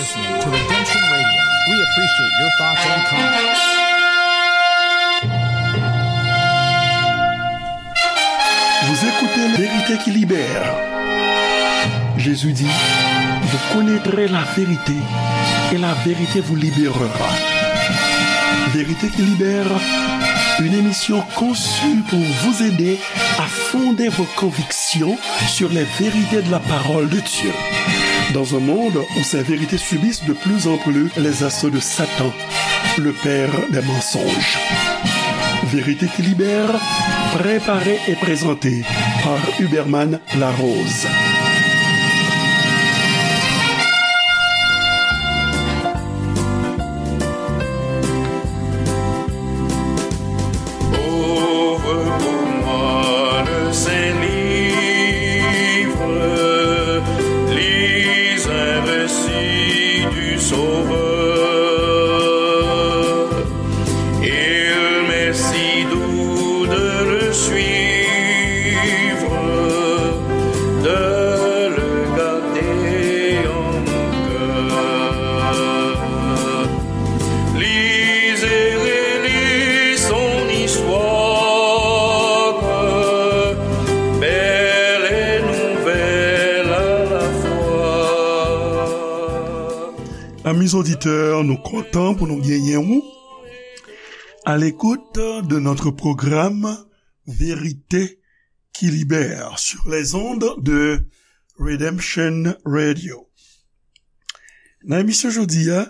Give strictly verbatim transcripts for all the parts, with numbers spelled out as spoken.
Listening to Redemption Radio. We appreciate your thoughts and comments. Vous écoutez La vérité qui libère. Jésus dit, vous connaîtrez la vérité et la vérité vous libérera. Vérité qui libère, une émission conçue pour vous aider à fonder vos convictions sur les vérités de la parole de Dieu. Dans un monde où ces vérités subissent de plus en plus les assauts de Satan, le père des mensonges. Vérité qui libère, préparée et présentée par Huberman Larose. Ouvre pour moi le saint livre, lis un récit du Sauveur. Il m'est si doux de le suivre, de le garder en mon cœur. Lis et relis son histoire, belle et nouvelle à la fois. Amis auditeurs, nou kontan pou nou genyen ou à l'écoute de notre programme Vérité qui libère sur les ondes de Redemption Radio. Nan emisyon jodi a,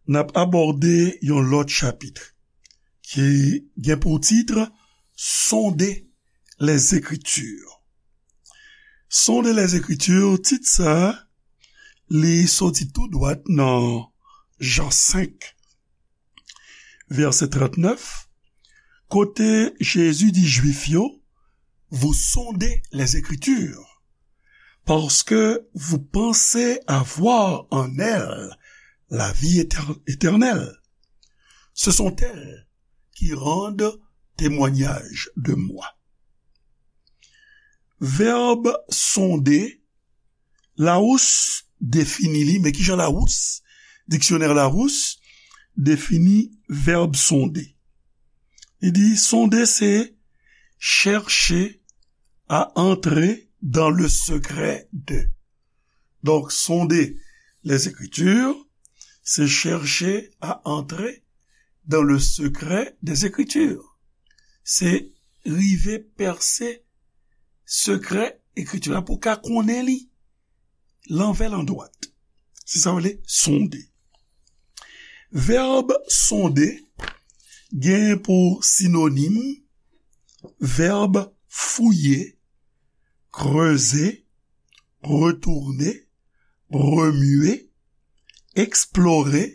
n ap abòde yon lòt chapit ki gen pou tit Sonder les Écritures. Sonder les Écritures, tit sa a, li soti tou dwat nan Jan senk, vèsè trannèf, kote Jezi di Jwif yo, vous sondez les Écritures, parce que vous pensez avoir en elles la vie éter-, éternelle. Ce sont elles qui rendent témoignage de moi. Vèb sonde, Larousse defini li, men kijan Larousse, diksyonè Larousse, defini vèb sonde? Li di, sonde se chercher à entrer dans le secret de. Donc, sonder les Écritures, c'est chercher à entrer dans le secret des Écritures. Se rive pèse sekrè Ekriti la pou ka konnen li lanvè landwat. Se sa yo rele sonde. Vèb sonde gen pou sinonim vèb fouye, kreze, retounen, remye, eksplore,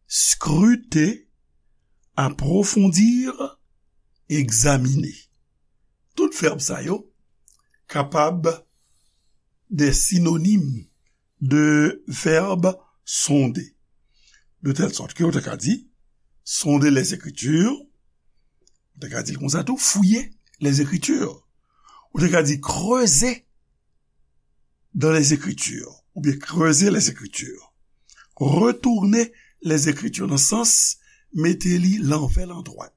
skrite, apwofondi, egzamine. Tout vèb sa yo kapab de sinonim de vèb sonde. De tèl sòt ke ou te ka di, sonder les Écritures, ou te ka di l konsa tou, fouiller les Écritures. Ou te ka di, creuser dans les Écritures, oubyen creuser les Écritures. Retourner les Écritures, nan sans mete li lanvè landwat.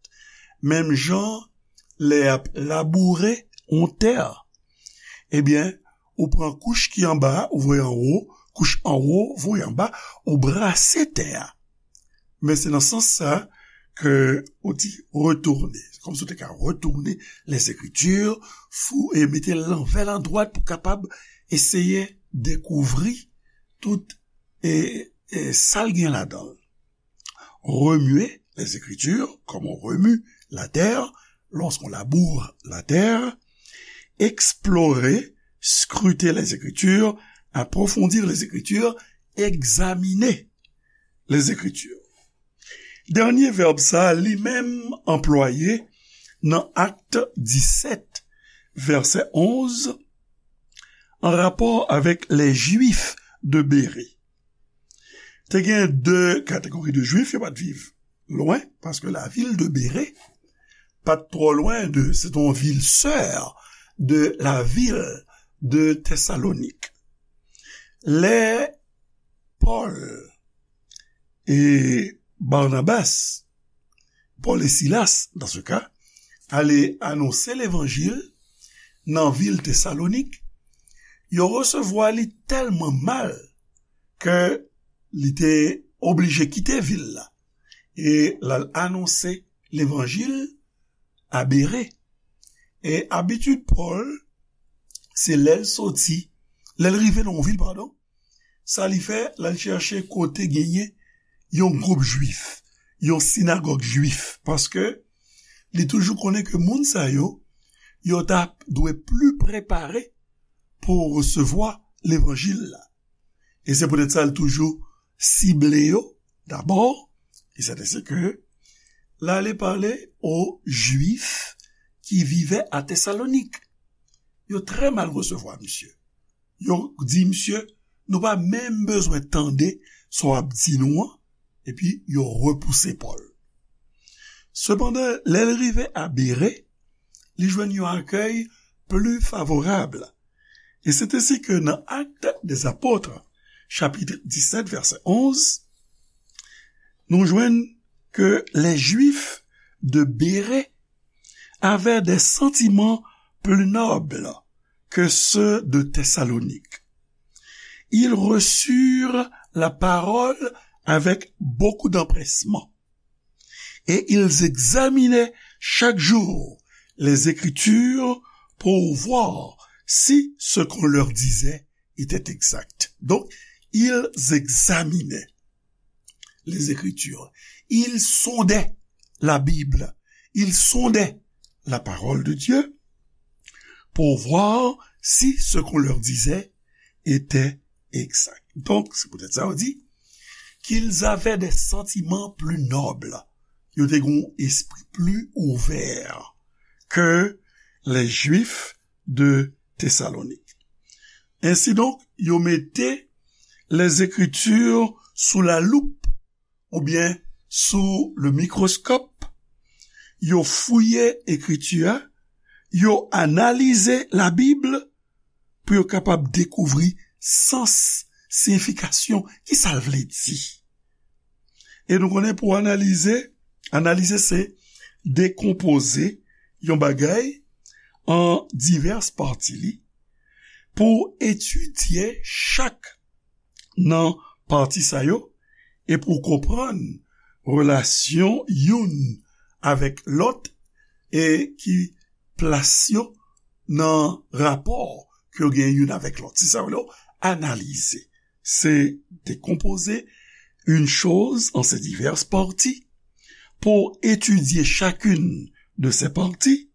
Menm jan lè y ap laboure yon tè, ebyen, ou pran kouch ki anba a, ou voye anwo, kouch anwo, voye anba, ou brase tè a. Men se nan sans sa ke ou di retourner. Se kòmsi ou te ka retourner les Écritures, fou, e mete l lanvè landwat pou kapab eseye dekouvri tout, e, e sa l gen ladan l. Remuer les Écritures, comme on remue la terre, lorsqu'on laboure la terre. Explorer, scruter les Écritures, approfondir les Écritures, examiner les Écritures. Dènye vèb sa, li menm anplwaye nan Actes dix-sept, vèsè onz, an rapò avèk les Juifs de Bérée. Te gen de kategori de Jwif, yo pa t viv lwen, paske lavil de Bere pa t twò lwen de, se te yon vil sè de lavil de Tesalonik. Lè Pòl e Barnabas, Pòl e Silas, dans ce cas, ale anonse levanjil nan vil Tesalonik, yo resevwa li tèlman mal ke li te oblije kite vil la e l al anonse levanjil a Bere. E abitid Pòl, se lè l soti, lè l rive nan yon vil, padon, sa li fè, l al chèche kote genyen yon gwoup jwif, yon sinagòg jwif, paske li toujou konnen ke moun sa yo, yo ta dwe pli prepare pou resevwa levanjil la. E se poutèt sa l toujou sible yo dabò, e sèten se ke l ale pale o Jwif ki vive a Tesalonik. Yo trè mal resevwa misye. Yo di misye, nou pa menm bezwen tande sa w ap di nou an, epi yo repouse Pòl. Sepandan, lè l rive a Bere, li jwenn yon akèy pli favorab. E se te si ke nan Actes des Apôtres, chapitre dix-sept, verset onze, nou jwenn que les Juifs de Bérée avaient des sentiments plus nobles que ceux de Thessalonique. Ils reçurent la parole avec beaucoup d'empressement et ils examinaient chaque jour les Écritures pour voir si ce qu'on leur disait était exact. Donc, ils examinaient les Écritures. Ils sondaient la Bible. Ils sondaient la parole de Dieu pour voir si ce qu'on leur disait était exact. Donk, se poutèt sa yo di, qu'ils avaient des sentiments plus nobles. Yo te gen yon espri pli ouvè ke les Juifs de Thessalonique. Ensidonk, yo mete les Écritures sous la loupe oubyen sou le mikroskòp, yo fouye Ekriti a, yo analize Labib pou yo kapab dekouvri sans, siyifikasyon, ki sa l vle di. E nou konnen pou analize, analize se dekonpoze yon bagay an divès pati li, pou etidye chak nan pati sa yo, e pou konprann relasyon youn avèk lòt, e ki plas yo nan rapò ke yo gen youn avèk lòt. Se sa yo rele analize. Se décomposer une chose en ses diverses parties pour étudier chacune de ces parties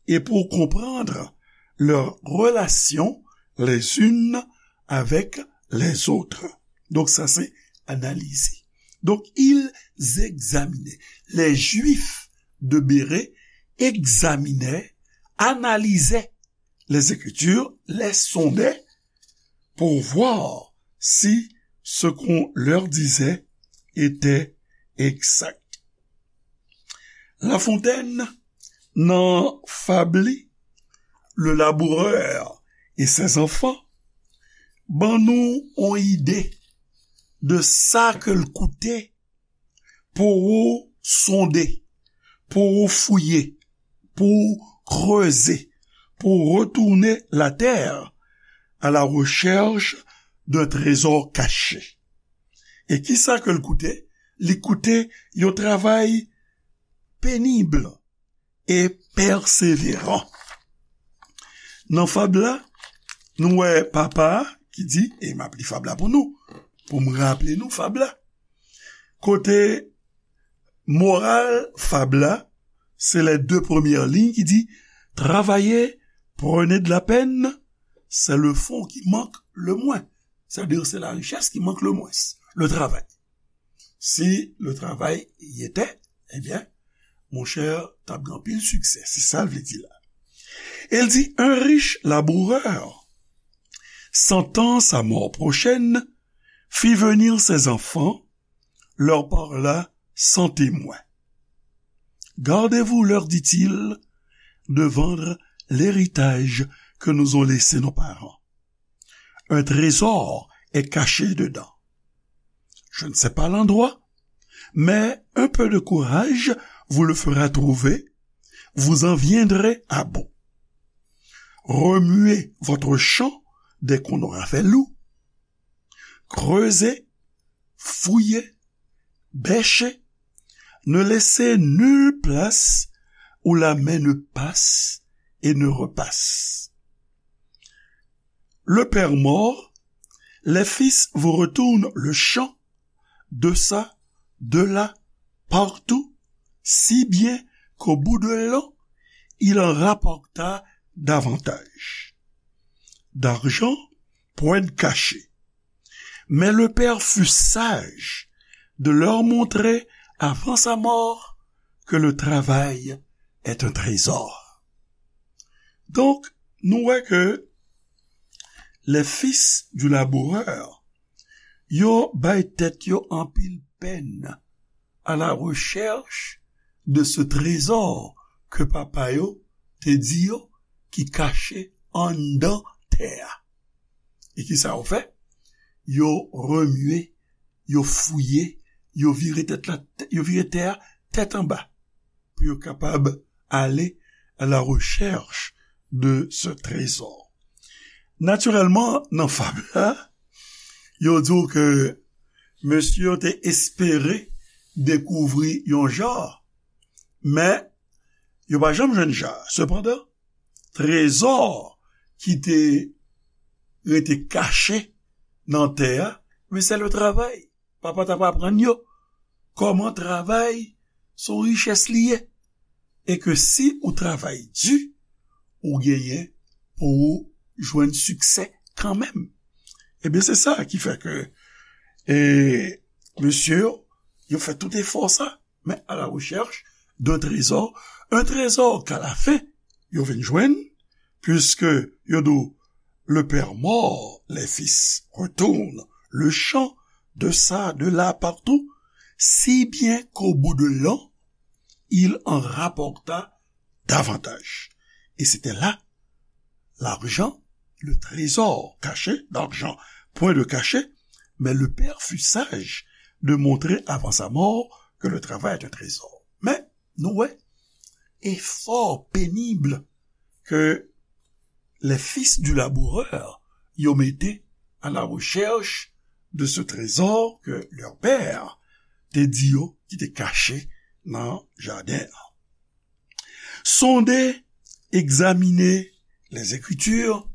et pour comprendre leurs relations les unes avec les autres. Donk, sa se analize. Donk, ils examinaient. Les Juifs de Bérée examinaient, analysaient les Écritures, les sondaient pour voir si ce qu'on leur disait était exact. Lafontaine, nan fab li, Le laboureur et ses enfants, ban nou yon ide de sa ke l koute pou ou sonde, pou ou fouye, pou ou kreze, pou ou retourner la terre à la recherche d'un trésor caché. E ki sa ke l koute? Li koute yon travay pénible et persévérant. Nan fab la, nou wè papa a ki di, e m ap li fab la pou nou, pou m raple nou fab la. Kote moral fab la, se les deux premières lignes ki di, travailler, prenez de la peine, c'est le fonds qui manque le moins. C'est-à-dire, c'est la richesse qui manque le moins, le travail. Si le travail y était, ebyen, monchè, t ap gen anpil siksè. Se sa l vle di la. E l di, un riche laboureur, sentant sa mort prochaine, fit venir ses enfants, leur parla sans témoin. Gardez-vous, leur dit-il, de vendre l'héritage que nous ont laissé nos parents. Un trésor est caché dedans. je ne sais pas l'endroit, mais un peu de courage vous le fera trouver, vous en viendrez à bout. Remuez votre champ dès qu'on aura fait loup. Creusez, fouillez, bêchez, ne laissez nulle place où la main ne passe et ne repasse. Le père mort, les fils vous retournent le champ, de ça, de là, partout, si bien qu'au bout de l'an, il en rapporta davantage. D'argent, point de cachet. Mais le père fut sage de leur montrer avant sa mort que le travail est un trésor. Donk, nou wè ke les fils du laboureur, yo bay tèt yo anpil pèn à la recherche de ce trésor ke papa yo te di yo ki kache anndan tè a. E ki sa yo fè? Yo remye, yo fouye, yo vire tèt la, yo vire tè a tèt anba pou yo kapab ale à la recherche de ce trésor. Natirèlman, nan fab la, yo di w ke mesye yo te espere dekouvri yon ja, men yo pa janm jwenn ja. Sepandan, trezò ki te rete kache nan tè a, men se le travay. Papa t ap aprann yo kòman travay se yon richès li ye, e ke si ou travay di, ou genyen pou ou jwenn siksè kanmenm. Ebyen, se sa ki fè ke, e, mesye yo, yo fè tout efò sa, men à la recherche d'un trésor, un trésor qu'à la fin, yo vin jwenn, puisque yo di w, le père mort, les fils retournent le champ, de ça, de là, partout, si bien qu'au bout de l'an, il en rapporta davantage. Et c'était là l'argent, le trésor caché, d'argent, point de cachet, mais le père fut sage de montrer avant sa mort que le travail est un trésor. Men, nou wè, efò penib ke les fils du laboureur yo mete à la recherche de ce trésor que leur père te di yo ki te kache nan jaden an. Sonder, examiner les Écritures,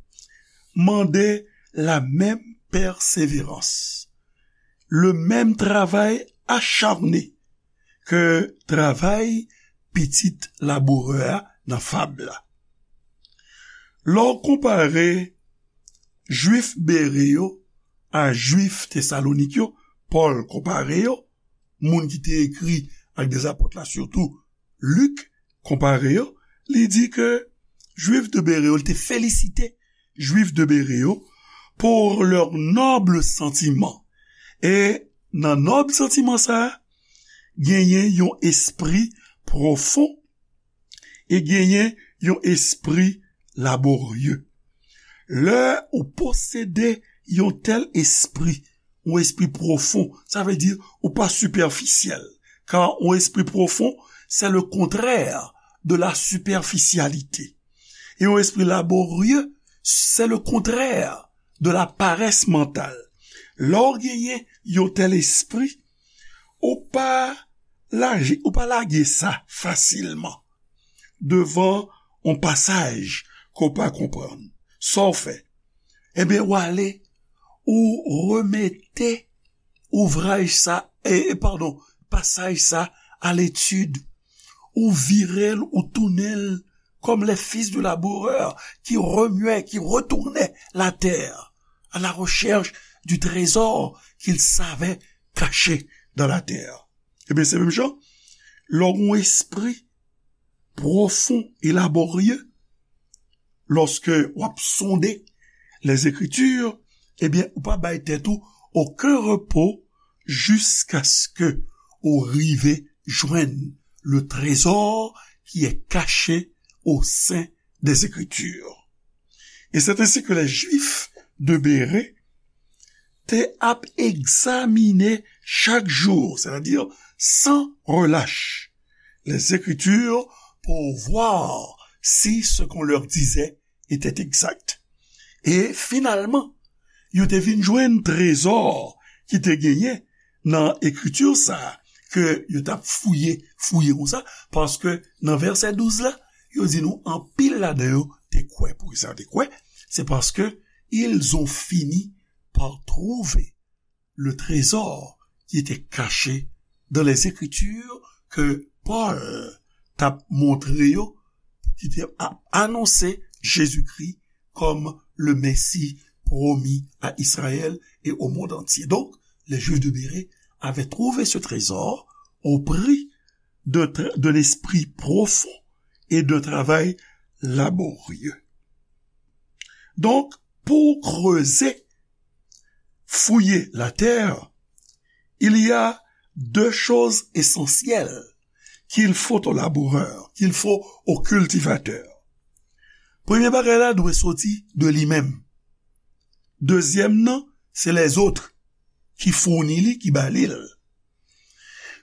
mande la même persévérance, le même travail acharné ke travay pitit labourè a nan fab la. Lè w konpare Jwif Bere yo a Jwif Tesalonik yo, Pòl konpare yo, moun ki te ekri Actes des Apôtres la, sitou Lik konpare yo, li di ke Jwif de Bere yo, li te felisite Jwif de Bere yo pour leur noble sentiment. E nan nòb santiman sa a, genyen yon espri pwofon e genyen yon espri laborye. Lè ou posede yon tèl espri, yon espri pwofon, sa vle di ou pa sipèfisyèl. Car yon espri pwofon, c'est le contraire de la superficialité. E yon espri laborye, c'est le contraire de la paresse mentale. Lè w genyen yon tèl espri, ou pa lage, ou pa lage sa fasilman devan yon pasaj ke w pa konprann. Sa w fè? Ebyen, w ale, ou remete ouvraj sa, e, e, padon, pasaj sa a letid, ou vire l, ou tounen l, comme les fils du laboureur qui remuaient, qui retournaient la terre à la recherche du trésor qu'ils savaient caché dans la terre. Ebyen, se menm jan, lè w gen yon espri pwofon e laborye, lòske w ap sonde les Écritures, ebyen, ou pa bay tèt ou okenn repo jiskaske ou rive jwenn le trésor qui est caché au sein des Écritures. Et c'est ainsi que les Juifs de Bérée te ap egzamine chaque jour, c'est-à-dire sans relâche, les Écritures pour voir si ce qu'on leur disait était exact. E finalman, yo te vin jwenn trezò ki te genyen nan ekriti sa a, ke yo t ap fouye, fouye konsa, paske nan vèsè douz la, yo di nou anpil ladan yo te kwè. Poukisa yo te kwè? Se paske ils ont fini par trouver le trésor qui était caché dans les Écritures ke Pòl t ap montre yo, ki te ap anonse Jezikri kòm le Messie promis à Israël et au monde entier. Donc, les Juifs de Bérée avaient trouvé ce trésor au prix d'un tra- d'un esprit profond et d'un travail laborieux. Donc, pour creuser, fouiller la terre, il y a deux choses essentielles qu'il faut au laboureur, qu'il faut au cultivateur. Premye bagay la dwe soti de li menm. Dezyèm nan, se lèzòt ki founi li, ki ba li l.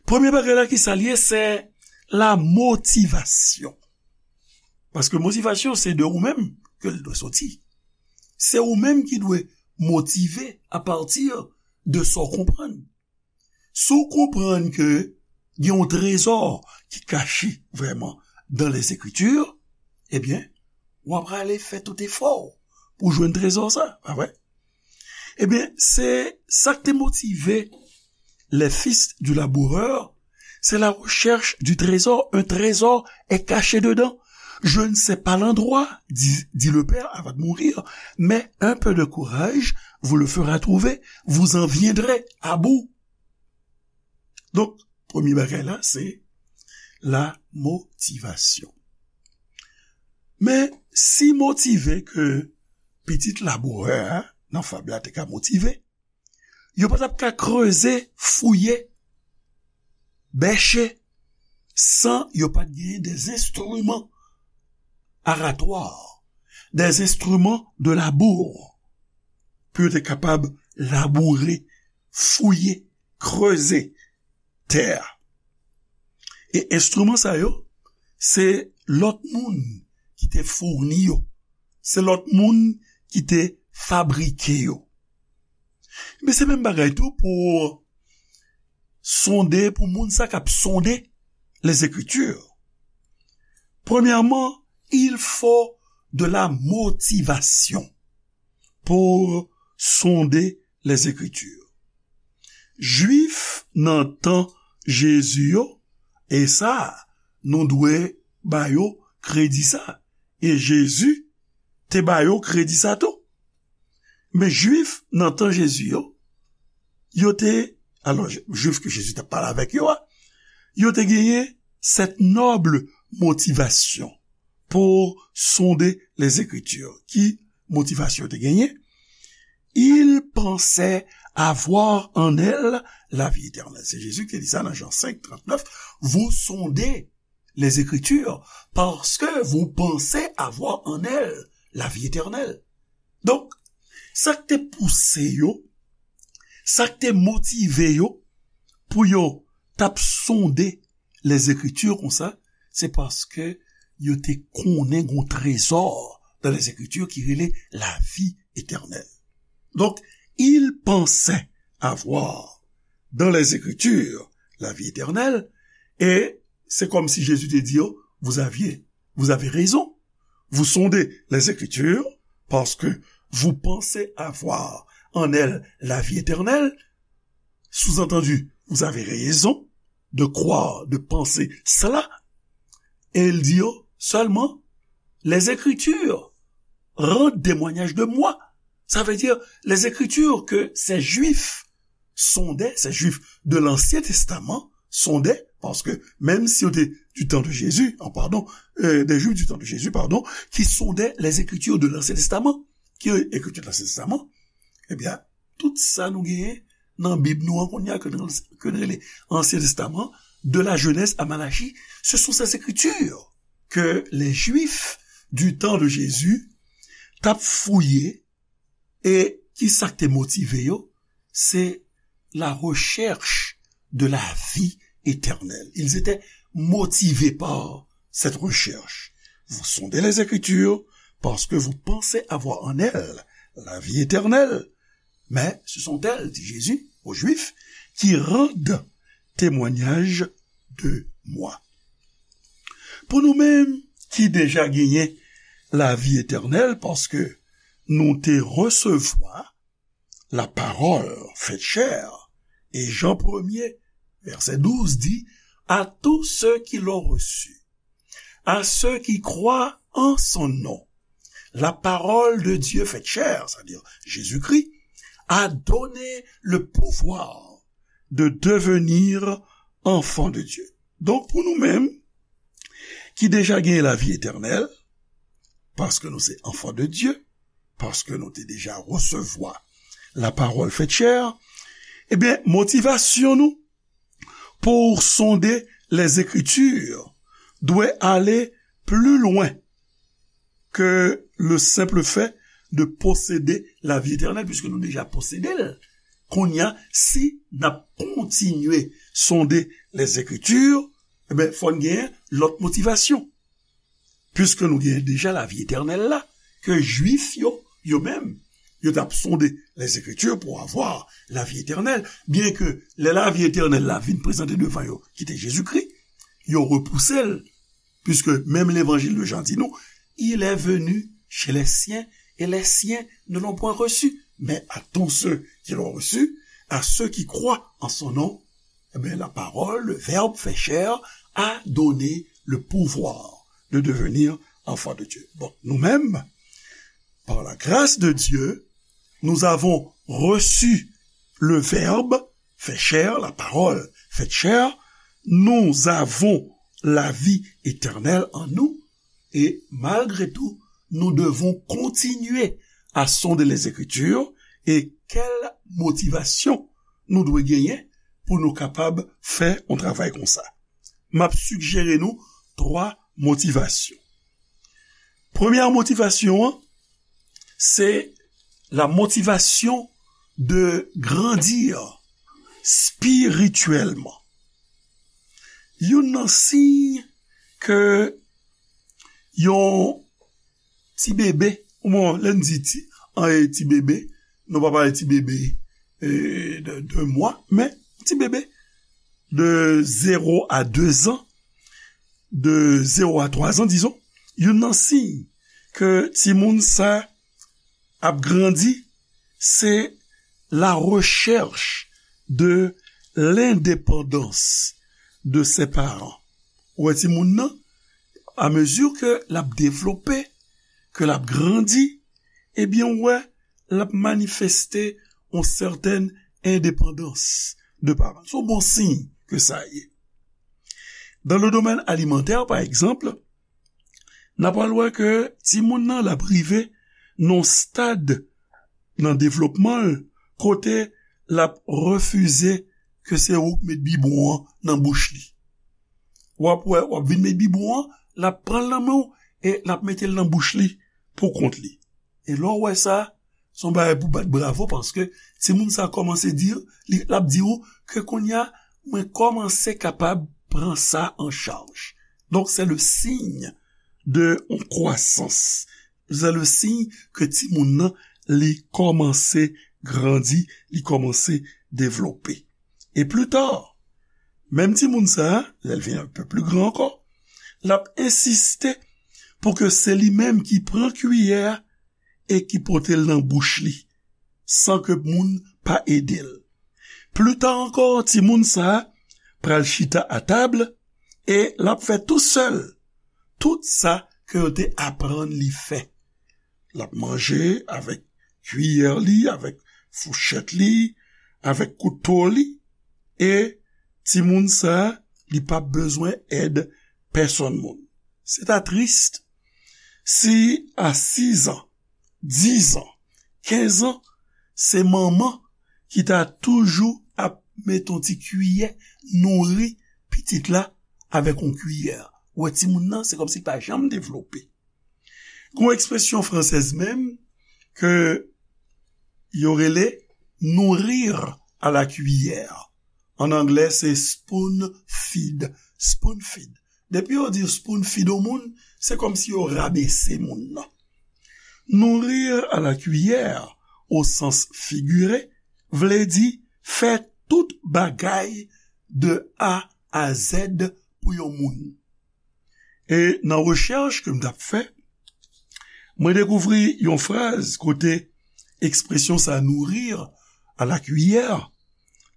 Premye bagay la ki sa l ye, se la motivasyon. Paske motivasyon se de ou menm ke l dwe soti. Se ou menm ki dwe motive apati de sa w konprann. Si w konprann ke gen yon trezò ki kache vrèman dans les Écritures, ebyen, w ap prale fè tout efò w pou jwenn trezò sa, pa vre? Ebyen, se sa k te motive les fils du laboureur, c'est la recherche du trésor. Un trésor est caché dedans. Je ne sais pas l'endroit, dit, dit le père avant de mourir, mais un peu de courage vous le fera trouver, vous en viendrez à bout. Donk, premye bagay la, se la motivasyon. Men, si motive ke pitit labourè a, nan fab la te ka motive, yo pa t ap ka kreze, fouye, bèche, san yo pa t genyen des instruments aratoires, des instruments de labour, pou yo te kapab laboure, fouye, kreze tè a. E enstriman sa yo, se lòt moun ki te founi yo. Se lòt moun ki te fabrike yo. Men se menm bagay tou pou sonde, pou moun sa k ap sonde les Écritures. Premyèman, il faut de la motivation pour sonder les Écritures. Jwif nan tan Jezi yo, e sa, nou dwe ba yo kredi sa. E Jezi te ba yo kredi sa tou. Men Jwif nan tan Jezi yo, yo te, alò, Jwif ke Jezi t ap pale avèk yo a, yo te genyen cette noble motivation pour sonder les Écritures. Ki motivasyon yo te genyen? Ils pensaient avoir en elles la vie éternelle. Se Jezi ki te di sa nan Jan senk, trannèf. Vous sondez les Écritures parce que vous pensez avoir en elles la vie éternelle. Donk, sa k te pouse yo, sa k te motive yo pou yo t ap sonde les Écritures konsa, se paske yo te konnen gon trezò dans les Écritures ki rele la vie éternelle. Donk, ils pensaient avoir dans les Écritures la vie éternelle, e se kòmsi Jezi te di yo, vous aviez, vous avez raison, vous sondez les Écritures parce que vous pensez avoir en elles la vie éternelle, sous-entendu, vous avez raison de croire, de penser cela. E l di yo sèlman, les Écritures rendent témoignage de moi. Ça veut dire, les Écritures que ces Juifs sondaient, ces Juifs de l'Ancien Testament sondaient, parce que même si c'était du temps de Jésus, ah, pardon, euh, des Juifs du temps de Jésus, pardon, qui sondaient les Écritures de l'Ancien Testament, ki écriture de l'Ancien Testament, eh bien, tout sa nou genyen nan Bib nou an kounye a, ke nou, ke nou rele Ancien Testament, de la Genèse à Malachie, ce sont ces écritures que les Juifs du temps de Jésus t ap fouye, e ki sa k te motive yo? Se la recherche de la vie éternelle. Ils étaient motivés par cette recherche. Vous sondez les Écritures parce que vous pensez avoir en elles la vie éternelle. Mais ce sont elles, dit Jésus aux Juifs, qui rendent témoignage de moi. Pou nou menm ki deja genyen lavi etènèl, paske nou te resevwa lapawòl fèt chè, e Jan premye, vèsè douz di, à tous ceux qui l'ont reçu, à ceux qui croient en son nom, la parole de Dieu faite chair, c'est-à-dire Jésus-Christ, a donné le pouvoir de devenir enfants de Dieu. Donk, pou nou menm, ki deja gen lavi etènèl, paske nou se enfants de Dieu, paske nou te deja resevwa lapawòl fèt chè, ebyen, motivasyon nou pour sonder les Écritures doit aller plus loin que le simple fait de posséder la vie éternelle, puisque nou deja posede l. Kounye a, si n ap kontinye sonde les Écritures, ebyen, fò n genyen lòt motivasyon. Puisque nou genyen deja lavi etènèl la, ke Jwif yo, yo menm, yo t ap sonde les Écritures pour avoir la vie éternelle, byen ke lè lavi etènèl la vin prezante devan yo, ki te Jezikri, yo repouse l, puisque même l'évangile de Jean di nou, il est venu chez les siens et les siens ne l'ont point reçu. Mais à tous ceux qui l'ont reçu, à ceux qui croient en son nom, eh bien, la parole, le verbe fait chair, a donné le pouvoir de devenir enfant de Dieu. Bon, nous-mêmes, par la grâce de Dieu, nous avons reçu le verbe fait chair, la parole faite chair. Nous avons la vie éternelle en nous. Et malgré tout, nous devons continuer à sonder les Écritures. E kèl motivasyon nou dwe genyen pou nou kapab fè yon travay konsa? M ap sigjere nou twa motivasyon. Premyè motivasyon an, se la motivation de grandir spirituellement. Youn nan siy ke yon ti bebe, bon, lè n di ti, an, e ti bebe, nou pa pale ti bebe, e, de, de mwa, men ti bebe de zéro à deux ans, de zéro à trois ans, disons, youn nan siy ke timoun sa ap grandi, se la recherche de l'indépendance de ses parents. Ou wè timoun nan, à mesure que l ap devlope, ke l ap grandi, ebyen, ou wè, l ap manifeste yon sètèn endepandans de paran. Se yon bon siy ke sa ye. Dans le domaine alimentaire, par exemple, n ap al wè ke timoun nan l ap rive nan yon stad nan devlopman l kote l ap refize ke se ou k met bibwon an nan bouch li. W ap wè, w ap vin met bibwon an, l ap pran l nan men w e l ap mete l nan bouch li pou kont li. E lè w wè sa, se yon bagay pou bat bravo, paske timoun sa kòmanse di, li, l ap di w ke kounye a, mwen kòmanse kapab pran sa an chaj. Donk, se le signe de yon kwasans. Se le signe ke timoun nan, li kòmanse grandi, li kòmanse devlope. E pli ta, menm timoun sa a, lè l vin un peu plus grand ankò, l ap ensiste pou ke se li menm ki pran kiyè a e ki pote l nan bouch li, san ke moun pa ede l. Pli ta ankò, timoun sa a pral chita atab e l ap fè tousèl tout sa ke yo te aprann li fè. L ap manje avèk kiyè li, avèk fouchèt li, avèk kouto li, e timoun sa a, li p ap bezwen èd pèsonn moun. Se ta tris si a sis an, dis an, kenz an, se manman ki ta toujou ap met yon ti kiyè, nouri pitit la avèk yon kiyè. Ou wè timoun nan, se kòmsi l pa janm devlope. Gen yon ekspresyon fransèz menm ke yo rele nourrir à la cuillère. An anglè, se spoon feed. Spoon feed. Depi yo di spoon feed yon moun, se kòmsi yo rabese moun nan. Nourrir à la cuillère, au sens figuré, vle di fè tout bagay de A à Z pou yon moun. E nan rechèch ke m t ap fè, mwen dekouvri yon fraz kote ekspresyon sa, nourrir à la cuillère,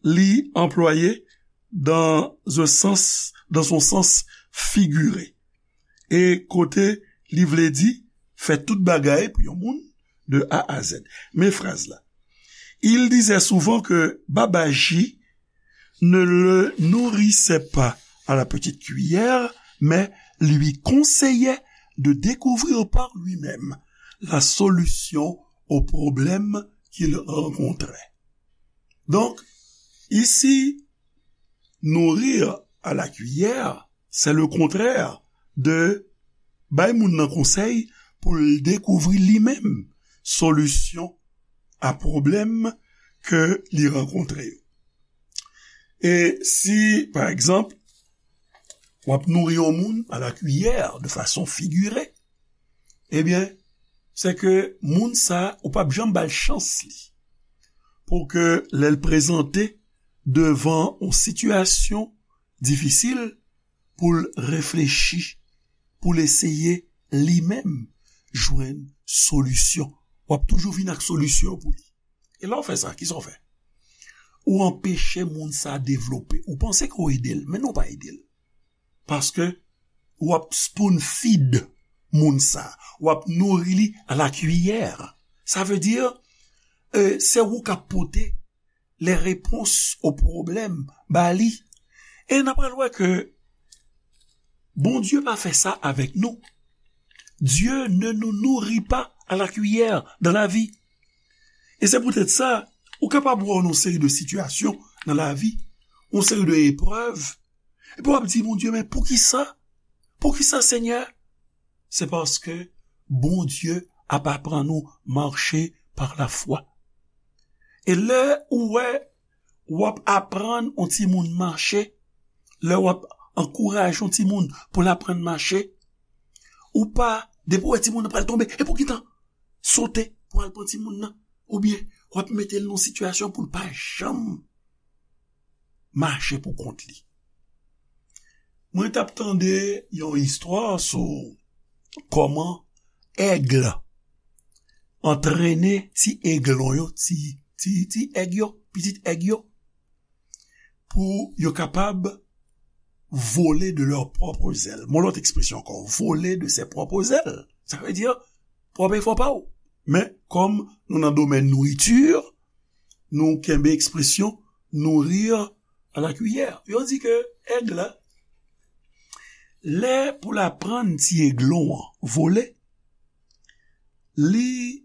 li anplwaye dans un sens, dans son sens figuré. E kote li vle di fè tout bagay pou yon moun de A à Z. Men fraz la. Il disait souvent que Babaji ne le nourrissait pas à la petite cuillère, mais lui conseillait de découvrir par lui-même la solution au problème qu'il rencontrait. Donc, ici, nourrir à la cuillère, c'est le contraire de bay moun nan konsèy pou l dekouvri li menm solisyon a pwoblèm ke li rankontre yo. E si, pa egzanp, w ap nouri yon moun à la cuillère, de façon figurée, ebyen, se ke moun sa, ou p ap janm ba l chans li. Pou ke lè l prezante devan yon sitiyasyon difisil, pou l reflechi, pou l eseye li menm jwenn solisyon. W ap toujou vin ak solisyon pou li. E lè w fè sa, kisa w fè? Ou anpeche moun sa devlope. Ou panse ke w ede l, men non, w pa ede l. Paske w ap spoon feed moun sa. W ap nouri li à la cuillère. Sa vle di, e, se ou k ap pote les réponses aux problèmes ba li. E n ap pral wè ke Bondye pa fè sa avèk nou. Dieu ne nous nourrit pas à la cuillère dans la vie. E se poutèt sa, ou kapab wè yon seri de sitiyasyon nan lavi, yon seri de eprèv, epi w ap di, Bondye, men poukisa? Poukisa, Senyè? Se paske Bondye ap aprann ou mache par la foi. E lè ou wè w ap aprann yon timoun mache, lè w ap ankouraje yon timoun pou l aprann mache, ou pa, depi w wè timoun nan pral tonbe, epi w gentan sote pou al pran timoun nan, oubyen w ap mete l nan yon sitiyasyon pou l pa janm mache pou kont li. Mwen t ap tande yon istwa sou kòman èg antrennen ti eglon yo, ti, ti, ti èg yo, pitit èg yo, pou yo kapab voler de leurs propres ailes. Mon lòt ekspresyon ankò, voler de ses propres ailes. Sa vle di, pwòp efò pa w. Men, kòm nou nan domèn nouriti, nou kenbe ekspresyon nourrir à la cuillère. Yo di ke èg la, lè pou l aprann ti eglon an vole, li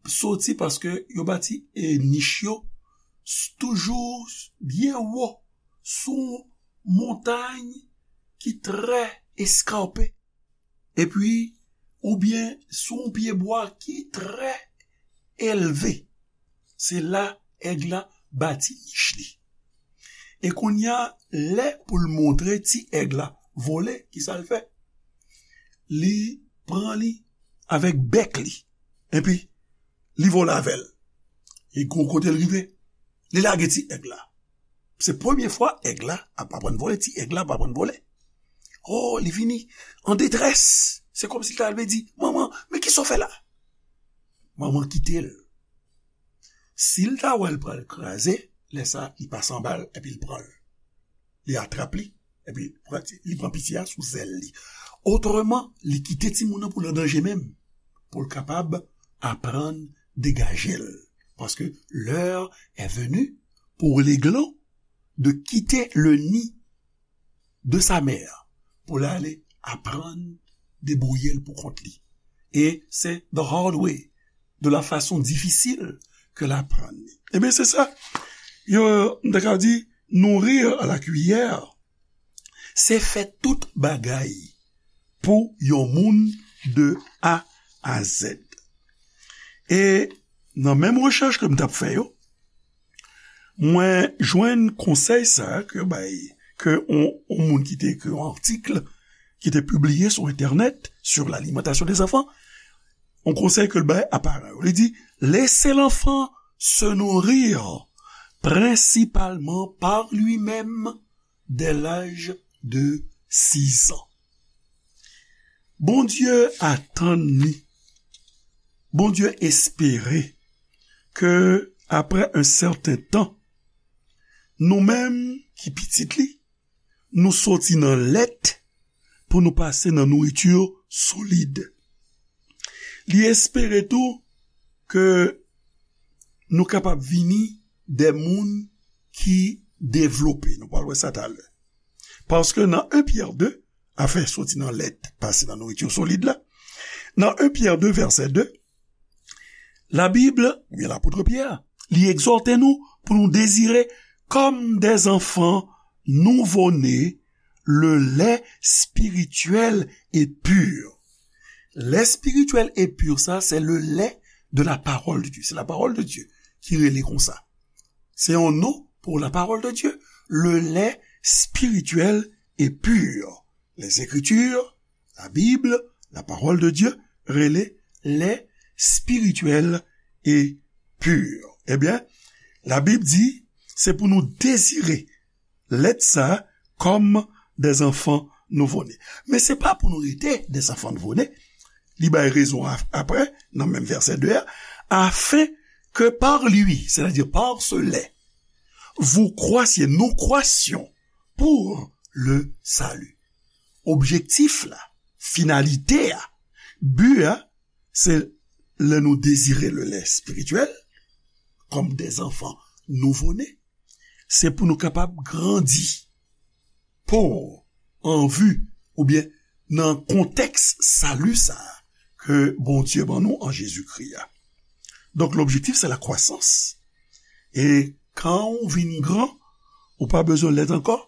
soti paske yo bati, e, nich yo s-, toujou byen wo sou montay ki trè eskarpe. Epi, oubyen sou yon pyebwa ki trè elve. Se la èg la bati nich li. E kounye a, lè pou l montre ti èg la vole, kisa l fè? Li pran li avèk bèk li. Epi, li vole avè l. E gon kote l rive, li lage ti èg la. Se premye fwa èg la ap aprann vole, ti èg la ap aprann vole. Oh, li vini an detrès. Se kòmsi l ta vle di, manman, men kisa w fè la? Manman kite l. Si l ta wè l pral kraze, lè sa, li pase anba l epi l pran l. Li atrap li, epi pran ti, li pran piti a sou zèl li. Otreman, li kite timoun nan pou l an danje menm, pou l kapab aprann degaje l. Parce que l'heure est venue pour l'aiglon de quitter le nid de sa mère pou l ale aprann debouye l pou kont li. E se the hard way, de la fason difisil ke l aprann li. Ebyen, se sa. Yo, m ta ka di, nourrir à la cuillère, se fè tout bagay pou yon moun de A à Z. E nan menm rechèch ke m t ap fè yo, Mwen jwenn konsèy sa a ke bay, ke on, on moun ki te ekri yon atik, ki te pibliye sou entènèt, sur l'alimentation des enfants, on konsèy ke l bay a paran yo. Li di, laissez l'enfant se nourrir principalement par lui-même dès l'âge de six ans. Bondye atann ni, Bondye espere ke, après un certain temps, nou menm ki pitit li, nou soti nan lèt pou nou pase nan nouriti solid. Li espere tou ke nou kapab vini de moun ki devlope. Nou pral wè sa talè. Paske nan en Pyè de, afè soti nan lèt, pase nan nouriti solid la, nan en Pyè de, vèsè de, Labib, oubyen lapot Pyè, li egzòte nou pou nou dezire, comme des enfants nouveau-nés, le lait spirituel et pur. Lait spirituel et pur, sa, se le lait de la parole de Dieu. Se la parole de Dieu ki rele konsa. Se yon non pou la parole de Dieu. Le lait spirituel et pur. Les Écritures, la Bible, la parole de Dieu, rele lait spirituel et pur. Ebyen, Labib di, se pou nou dezire lèt sa a comme des enfants nouveau-nés. Men se pa pou nou rete des enfants nouveau-nés. Li bay rezon a, apre, nan menm vèsè de a, afin que par lui, c'est-à-dire par ce lait, vous croissiez, nous croissions pour le salut. Objektif la, finalite a, bi a, se lè nou dezire le lait spirituel, comme des enfants nouveau-nés, se pou nou kapab grandi pou, an vi, oubyen nan kontèks sali sa a ke Bondye ban nou an Jezikri a. Donk, lobjektif, se la kwasans. E kan ou vin gran, ou pa bezwen lèt ankò,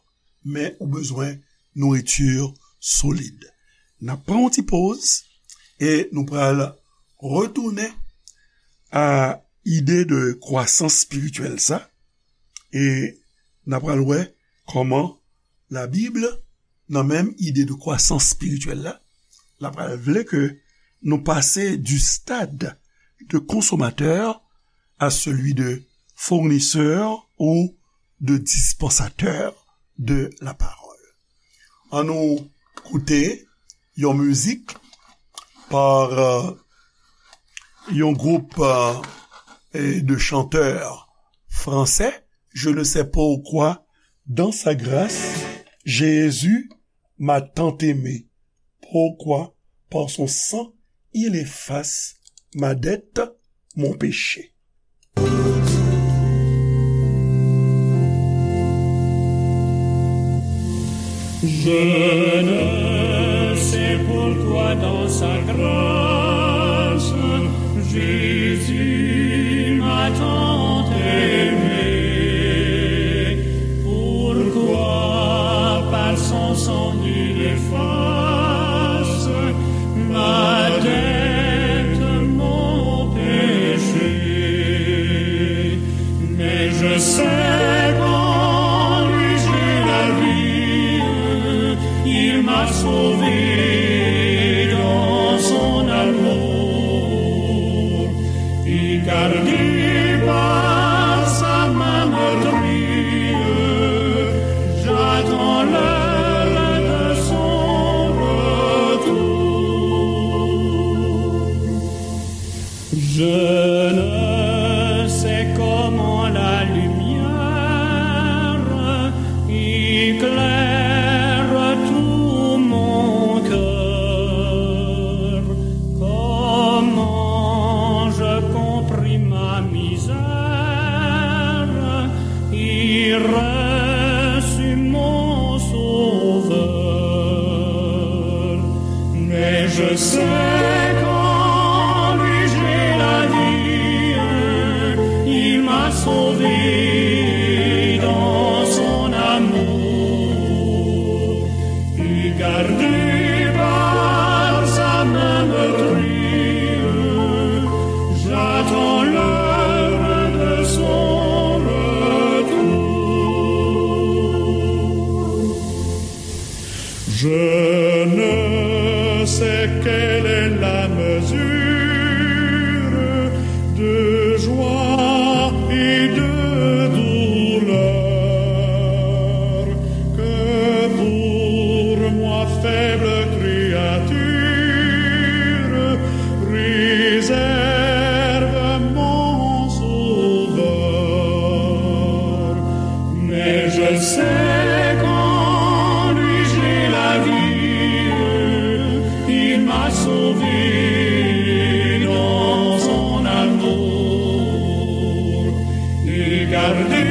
men ou bezwen nouriti solid. N ap pran yon ti poz e nou pral retounen a ide de kwasans espirityèl sa e n ap pral wè kòman Labib, nan menm ide de kwasans espirityèl la, l ap pral vle ke nou pase du stade de consommateur à celui de fournisseur ou de dispensateur de la parole. Ann nou koute yon mizik pa, euh, yon gwoup, euh, de chanteurs français, Je ne sais pourquoi, dans sa grâce, Jésus m'a tant aimé. Pourquoi, par son sang, il efface ma dette, mon péché. Je ne sais pourquoi dans sa grâce, Jésus m'a tant aimé. Pourquoi par son sang il efface ma dette, mon péché. Mais je sais qu'en lui j'ai la vie, il m'a sauvé dans son amour. Et gardé par sa main meurtrie, j'attends l'heure de son retour. Je ne sais comment la lumière éclaire tout mon cœur, comment je comprime ma misère et reçu mon Sauveur. Mais je sais qu'en lui j'ai la vie, il m'a sauvé dans son amour. Et gardé par sa main meurtrie, j'attends l'heure de son retour. Quelle est la mesure de joie et de douleur que pour moi, faible créature, réserve mon Sauveur. Mais je sais qu'en lui j'ai la vie, il m'a sauvé dans son amour et gardé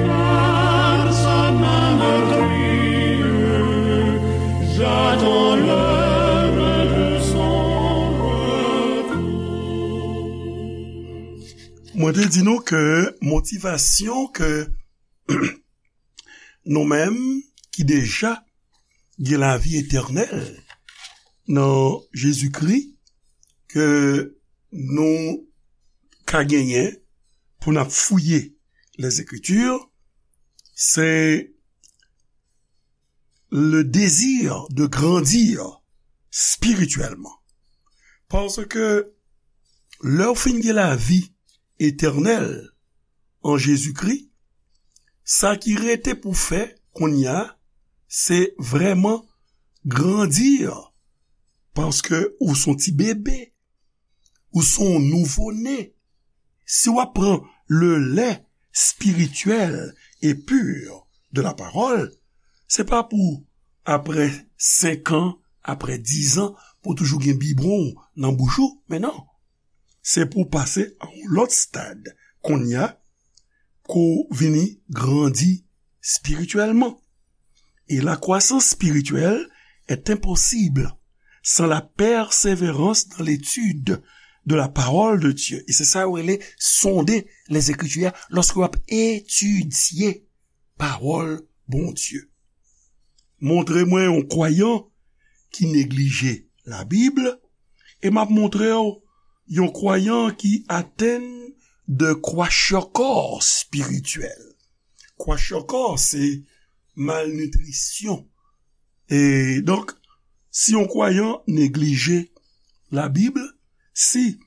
par sa main meurtrie. J'attends l'heure de son retour. Mwen te di nou ke motivasyon ke nou menm ki deja gen lavi etènèl nan Jezikri, ke nou ka genyen pou n ap fouye Lèzekriti, se le désir de grandir spirituellement. Paske lè w fin gen lavi etènèl an Jezikri, sa ki rete pou fè kounye a, se vrèman grandi, paske ou se yon ti bebe, ou se yon nouvo ne. Si w ap pran le lait spirituel et pur de la parole, se pa pou apre senk an, apre diz an, pou toujou gen bibwon nan bouch ou, men non. Se pou pase a yon lòt stad kounye a, ke w vini grandi spirityèlman. Et la croissance spirituelle est impossible sans la persévérance dans l'étude de la parole de Dieu. E se sa yo rele sonde les Écritures, lòske w ap etidye pawòl Bondye. Montre mwen yon kwayan ki neglije Labib, e m ap montre w yon kwayan ki atenn de kwashiorkor espirityèl. Kwashiorkor, se malnitrisyon. E donk, si yon kwayan neglije Labib, si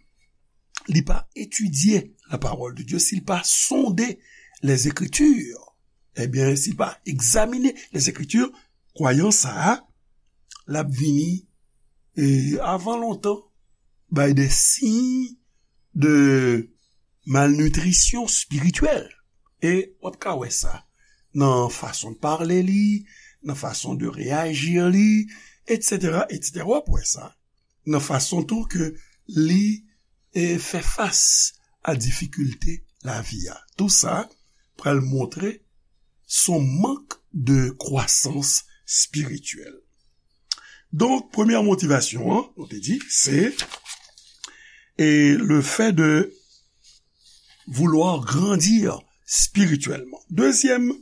li pa etidye la parole de Dieu, si l pa sonde les Écritures, ebyen, si l pa egzamine les Écritures, kwayan sa a, l ap vini, e, avan lontan, bay de siy de malnitrisyon espirityèl. E w ap ka wè sa nan fason de pale li, nan fason de reyaji li, etsetera, etsetera. W ap wè sa nan fason tou ke li, e, fè fas a difikilte lavi a. Tou sa pral montre son mank de kwasans espirityèl. Donk, premyè motivasyon an, nou te di, se, e, le fait de vouloir grandir spirituellement. Dezyèm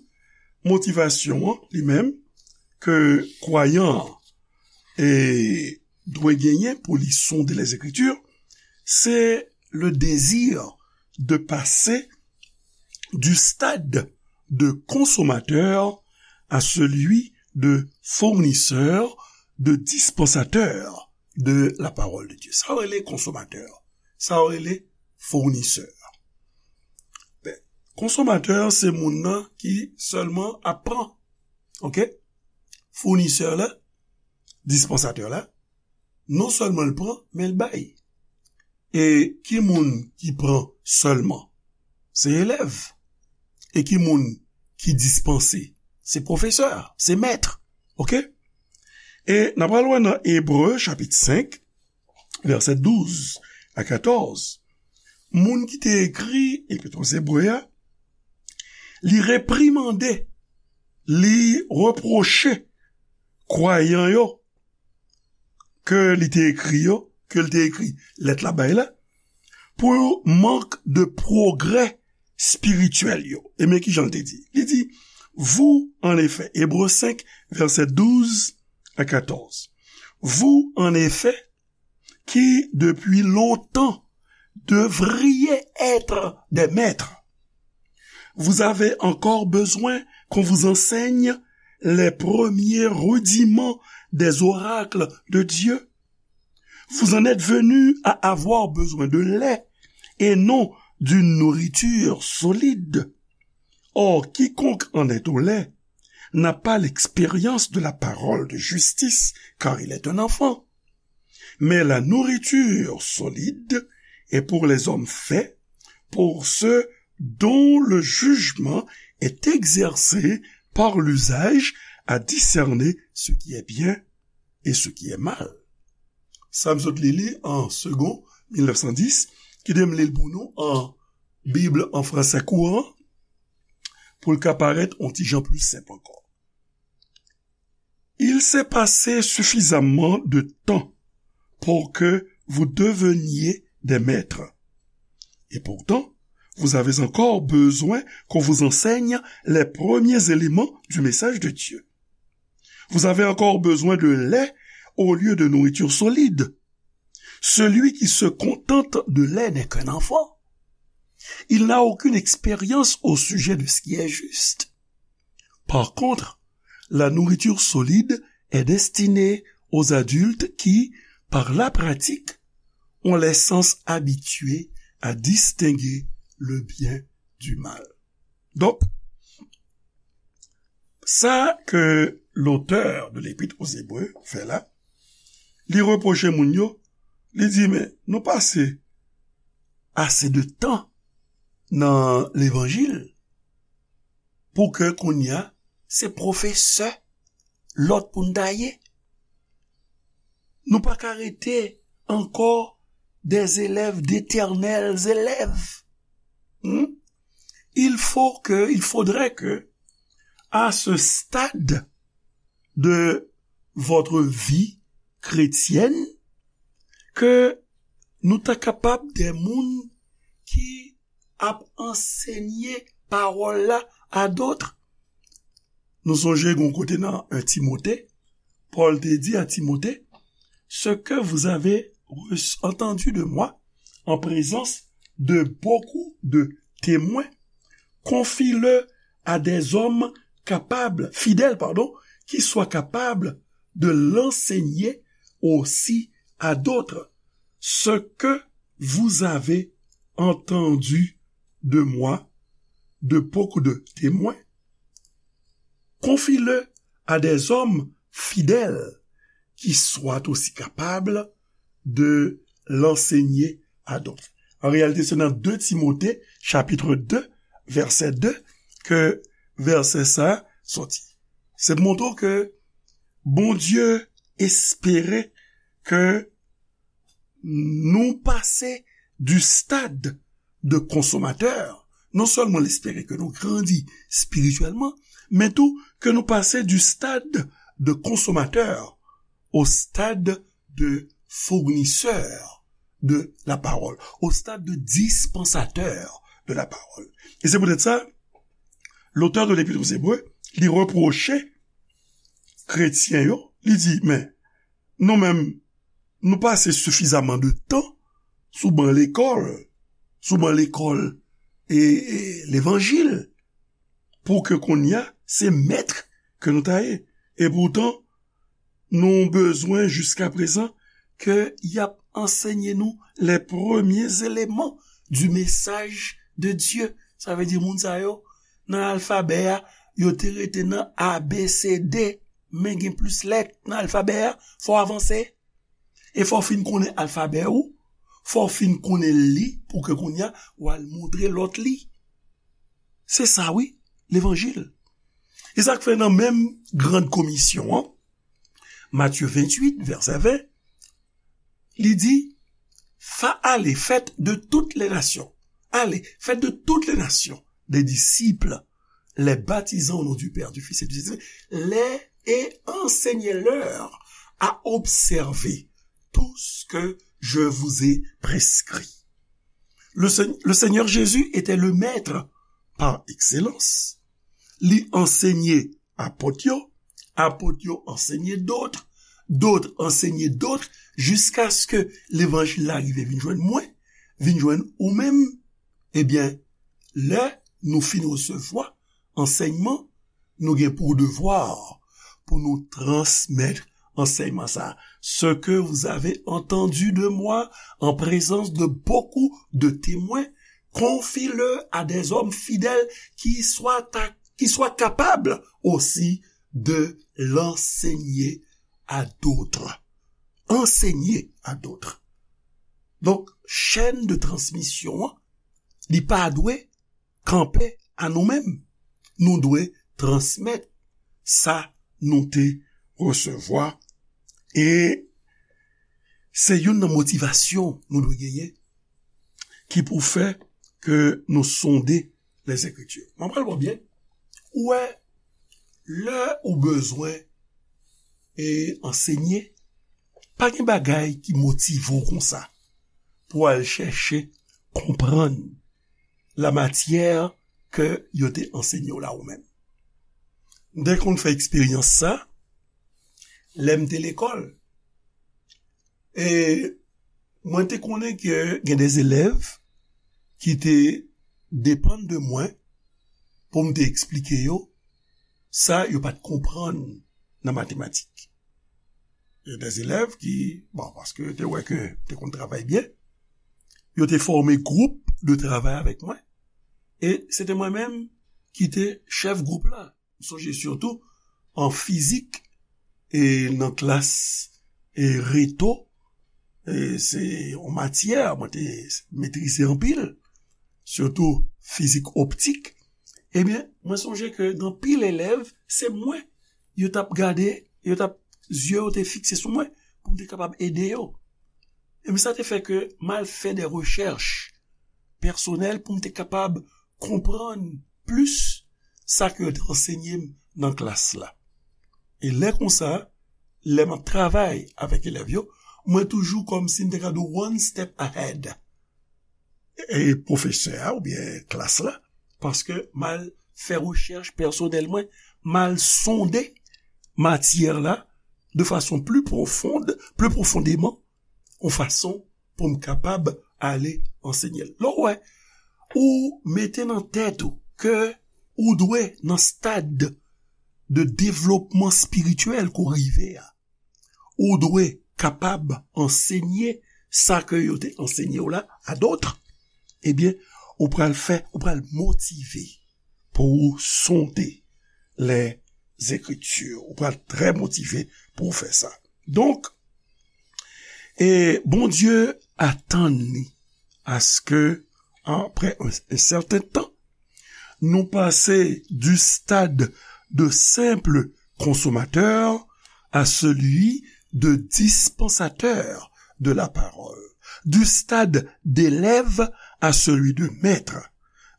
motivasyon an, li menm, ke kwayan an, e, dwe genyen pou li sonde les Écritures, se le désir de passer du stade de consommateur à celui de fournisseur, de dispensateur de la parole de Dieu. Sa yo rele konsomatè, sa yo rele founisè. Ben, konsomatè, se moun nan ki sèlman ap pran. Oke? Founisè la, dispansatè la, non sèlman l pran, men l bay. E ki moun ki pran sèlman? Se elèv. E ki moun ki dispanse? Se pwofesè, se mèt. Oke? E n ap pral wè nan Ebre, chapit senk, vèsè douz a katòz. Moun ki te ekri Epit Ebre a, li reprimande, li repwoche kwayan yo ke li te ekri yo, ke li te ekri lèt la bay la, pou mank de pwogrè espirityèl yo. E men ki jan l te di. Li di, vous, en effet, Ebre senk, vèsè douz a katòz. Vous, en effet, qui depuis longtemps devriez être des maîtres, vous avez encore besoin qu'on vous enseigne les premiers rudiments des oracles de Dieu? Vous en êtes venus à avoir besoin de lait et non d'une nourriture solide. Or, quiconque en est au lait n'a pas l'expérience de la parole de justice, car il est un enfant. Mais la nourriture solide est pour les hommes faits, pour ceux dont le jugement est exercé par l'usage à discerner ce qui est bien et ce qui est mal. Sa m sot li li an Segond mil nèf san dis, kite m li l pou nou an Bib an fransè kouran, pou l ka parèt yon ti jan pli senp ankò. Il s'est passé suffisamment de temps pour que vous deveniez des maîtres. Et pourtant, vous avez encore besoin qu'on vous enseigne les premiers éléments du message de Dieu. Vous avez encore besoin de lait au lieu de nourriture solide. Celui qui se contente de lait n'est qu'un enfant. Il n'a aucune expérience au sujet de ce qui est juste. Par contre, la nourriture solide est destinée aux adultes qui, par la pratique, ont les sens habitués à distinguer le bien du mal. Donk, sa ke lotè de Lépître aux Hébreux fè la, li repwoche moun yo, li di, men, nou pase ase de tan nan levanjil pou ke kounye a, se pwofesè lòt pou n ta ye. Nou pa ka rete ankò des élèves, d'éternels élèves. Hmm? Il faut que, il faudrait que, à ce stade de votre vie chrétienne, ke nou ta kapab de moun ki ap ansenye pawòl la a dòt. Nou sonje gon kote nan en Timote, Pòl te di a Timote, ce que vous avez reçu- entendu de moi en présence de beaucoup de témoins, confie-le à des hommes capables, fidèles, pardon, qui soient capables de l'enseigner aussi à d'autres. Ce que vous avez entendu de moi, de beaucoup de témoins, confie-le à des hommes fidèles qui soient aussi capables de l'enseigner à d'autres. An reyalite, se nan de Timote, chapit de, vèsè de, ke vèsè sa soti. Se pou montre ke Bondye espere ke nou pase du stade de consommateur. Non sèlman l espere ke nou grandi espirityèlman, men tou ke nou pase du stade de consommateur au stade de fournisseur de la parole, au stade de dispensateur de la parole. E se poutèt sa, lotè de Lépître aux Hébreux, li repwoche kretyen yo, li di, men, nou menm, nou pase sifizaman de tan sou ban lekòl, sou ban lekòl e, e levanjil, pou ke kounye a, se mèt ke nou ta ye. E poutan, nou bezwen jiska prezan ke y ap ansenye nou les premiers éléments du message de Dieu. Sa vle di moun sa yo, nan alfabè a, yo te rete nan A B C D, men gen plis lèt nan alfabè a, fò w avanse. E fò w fin konnen alfabè ou, fò w fin konnen li pou ke kounye a w al montre lòt li. Se sa wi, levanjil. E sa k fè nan menm grann komisyon an, Matye venntuit, vèsè ven, li di, fa, allez, faites de toutes les nations. Allez, faites de toutes les nations des disciples, les baptisant au nom du Père, du Fils et du Saint-Esprit, les, et enseignez-leur à observer tout ce que je vous ai prescrit. Le, Seigneur Jésus était le maître par excellence. Li ansenye apot yo, apot yo ansenye dòt, dòt ansenye dòt, jiskaske levanjil la rive vin jwenn mwen, vin jwenn ou menm. Ebyen, lè nou fin resevwa ansèyman, nou gen pou devwa pou nou transmèt ansèyman sa a. Ce que vous avez entendu de moi en présence de beaucoup de témoins, confie-le à des hommes fidèles qui soient, à- qui soient capables aussi de l'enseigner à d'autres. Enseigner à d'autres. Donk, chèn de transmisyon an, li pa dwe kanpe a nou menm. Nou dwe transmèt sa nou te resevwa. E se youn nan motivasyon nou dwe genyen ki pou fè ke nou sonde Lèzekriti. Mwen pral wè byen. Ou wè, lè ou bezwen e ansenye, pa gen bagay ki motive w konsa pou al chèche konprann la matyè ke yo te ansenye w la ou menm. M te konn fè eksperyans sa lè m te lekòl. E mwen te konnen ke gen de elèv ki te depann de mwen pou m te eksplike yo sa yo pa t konprann nan matematik. Gen de elèv ki, bon, paske yo te wè ke m te konn travay byen, yo te fòme gwoup de travay avèk mwen. E se te mwen menm ki te chèf gwoup la. M sonje sitou an fizik e nan klas e reto, e se yon matyè mwen te metrize anpil, sitou fizik optik. Ebyen, mwen sonje ke gen anpil elèv, se mwen yo t ap gade, yo t ap, zye yo te fikse sou mwen pou m te kapab ede yo. Ebyen, sa te fè ke m al fè de rechèch pèsonèl pou m te kapab konprann plis sa ke yo te ansenye m nan klas la. E lè konsa, lè m ap travay avèk elèv yo, mwen toujou kòmsi m te ka di one step ahead e pwofesè a oubyen klas la, paske m al fè rechèch pèsonèl mwen, m al sonde matyè la de fason pli pwofond, pli pwofondèman, yon fason pou m kapab ale ansenye l. Lè w wè, ou mete nan tèt ou ke ou dwe nan stad de devlopman espirityèl ke w rive a, ou dwe kapab ansenye sa ke yo te ansenye w la a dòt, ebyen, ou pral fè, ou pral motive pou ou sonde Lèzekriti. Ou pral trè motive pou ou fè sa. Donk, e Bondye atann li aske, apre un, un certain temps, nous passer du stade de simple consommateur à celui de dispensateur de la parole, du stade d'élève à celui de maître,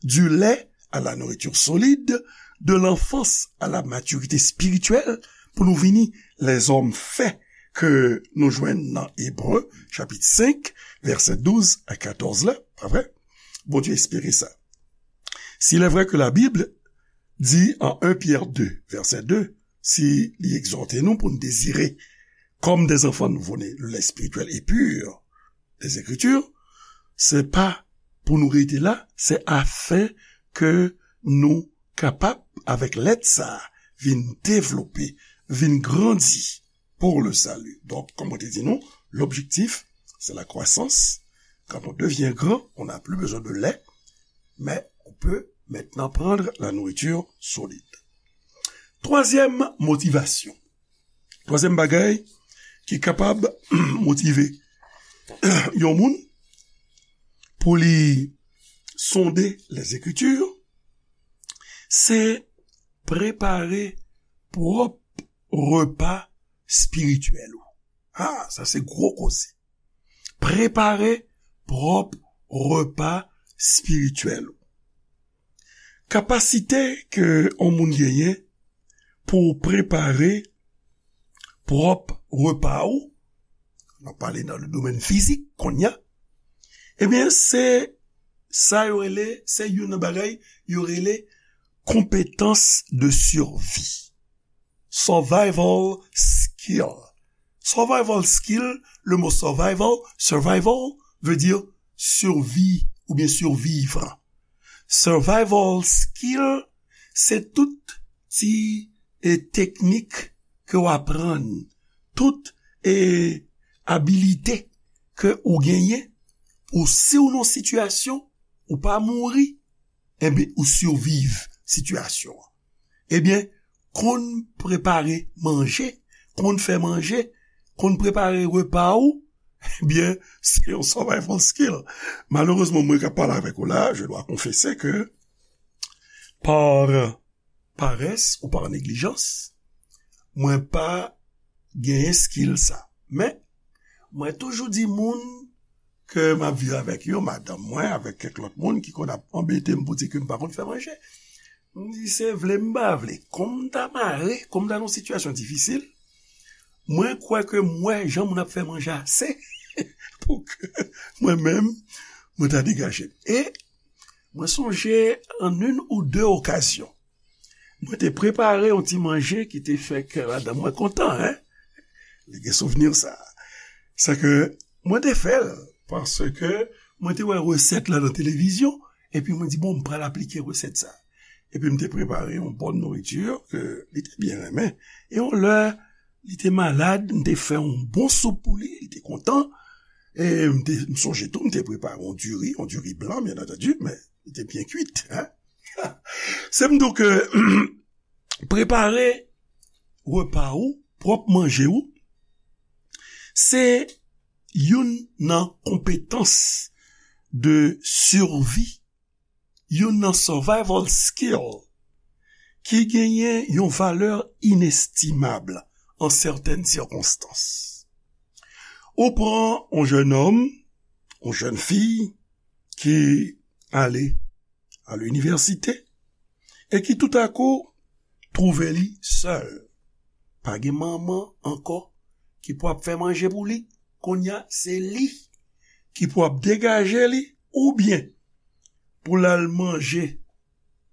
du lait à la nourriture solide, de l'enfance à la maturité spirituelle, pou nou vini lèzòm fè ke nou jwenn nan Ebre, chapit senk, vèsè douz a katòz la, pa vre? Bondye espere sa. S'il est vrai que la Bible dit en un Pierre deux, verset deux, si li egzòte nou pou n dezire comme des enfants nouveau-nés le lait spirituel et pur des Écritures, se pa pou nou rete la, se afin ke nou kapab, avèk lèt sa, vin devlope, vin grandi pour le salut. Donk, kòm mwen te di nou, l'objectif, c'est la croissance. Quand on devient grand, on n'a plus besoin de lait, mais on peut maintenant prendre la nourriture solide. Twazyèm motivasyon. Twazyèm bagay ki kapab motive yon moun pou li sonde Lèzekriti, se prepare pwòp repa espirityèl ou. Ah, sa se gwo koze. Prepare pwòp repa espirityèl ou. Kapasite ke yon moun genyen pou prepare pwòp repa ou, n ap pale nan le domèn fizik kounye a, ebyen, se sa yo rele, se youn nan bagay yo rele compétence de survie. Survival skill. Survival skill, le mot survival, survival veut dire survie ou bien survivre. Survival skill, se tout ti e teknik ke w aprann tout e, abilite ke ou genyen pou si w nan sitiyasyon ou pa mouri, enben, ou siviv sitiyasyon an. Ebyen, konn prepare manje, konn fè manje, konn prepare repa ou, ebyen, se yon survival skill. Malerezman, mwen k ap pale avèk ou la, je dois confesser que par paresse ou par négligence, mwen pa genyen skill sa. Men, mwen toujou di moun ke m ap viv avèk yo, madanm mwen, avèk kèk lòt moun ki konn ap anbete m pou di ke m pa konn fè manje. M di, se vle m pa vle. Kòm m ta mare, kòm m ta nan yon sitiyasyon difisil, mwen kwè ke m wè jan moun ap fè manje ase pou ke mwen menm, mwen ta degaje m. E mwen sonje an une ou deux occasions, mwen te prepare yon ti manje ki te fè kè madanm mwen kontan, en. Li gen souvni sa. Sa ke mwen te fè l, paske mwen te wè resèt la nan televizyon, epi mwen di, bon, m pral aplike resèt sa. Epi m te prepare yon bòn nouriti ke li te byen renmen. E yon lè, li te malad, m te fè yon bon soup pou li, li te kontan. E m te, m sonje tou, m te prepare yon diri, yon diri blan, byen antandi, men li te byen kwit, en. Se m di w ke prepare repa ou, pwòp manje ou, se youn nan konpetans de survie, youn nan survival skill ki genyen yon valè inestimab an sètèn sikonstans. Ou pran yon jennonm, yon jèn fi ki ale a linivèsite e ki toutakou twouve li sèl. Pa gen manman ankò ki pou ap fè manje pou li. Kounye a, se li ki pou ap degaje li oubyen pou l al manje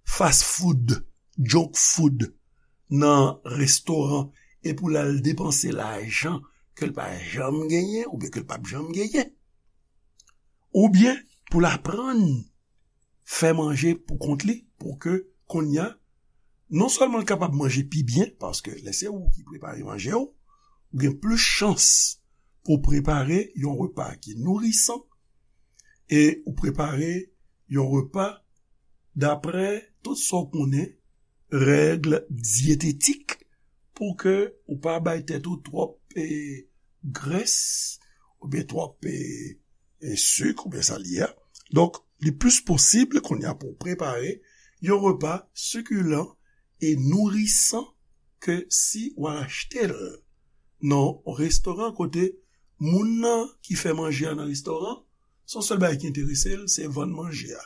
fast food, junk food nan restoran e pou l al depanse lajan ke l pa janm genyen oubyen ke l p ap janm genyen. Oubyen pou l aprann fè manje pou kont li, pou ke kounye a, non sèlman l kapab manje pi byen, paske lè se ou ki prepare manje w, ou gen plis chans pou w prepare yon repa ki nourisan e ou prepare yon repa daprè tout sa w konnen, règ dyetetik, pou ke ou pa bay tèt ou twòp, e, grès, oubyen twòp, e, e, sik, oubyen sa l ye a. Donk, li plis posib kounye a pou w prepare yon repa sikilan e nourisan ke si w al achte l nan yon restoran kote moun nan ki fè manje a nan restoran, se yon sèl bagay ki enterese l, se vann manje a.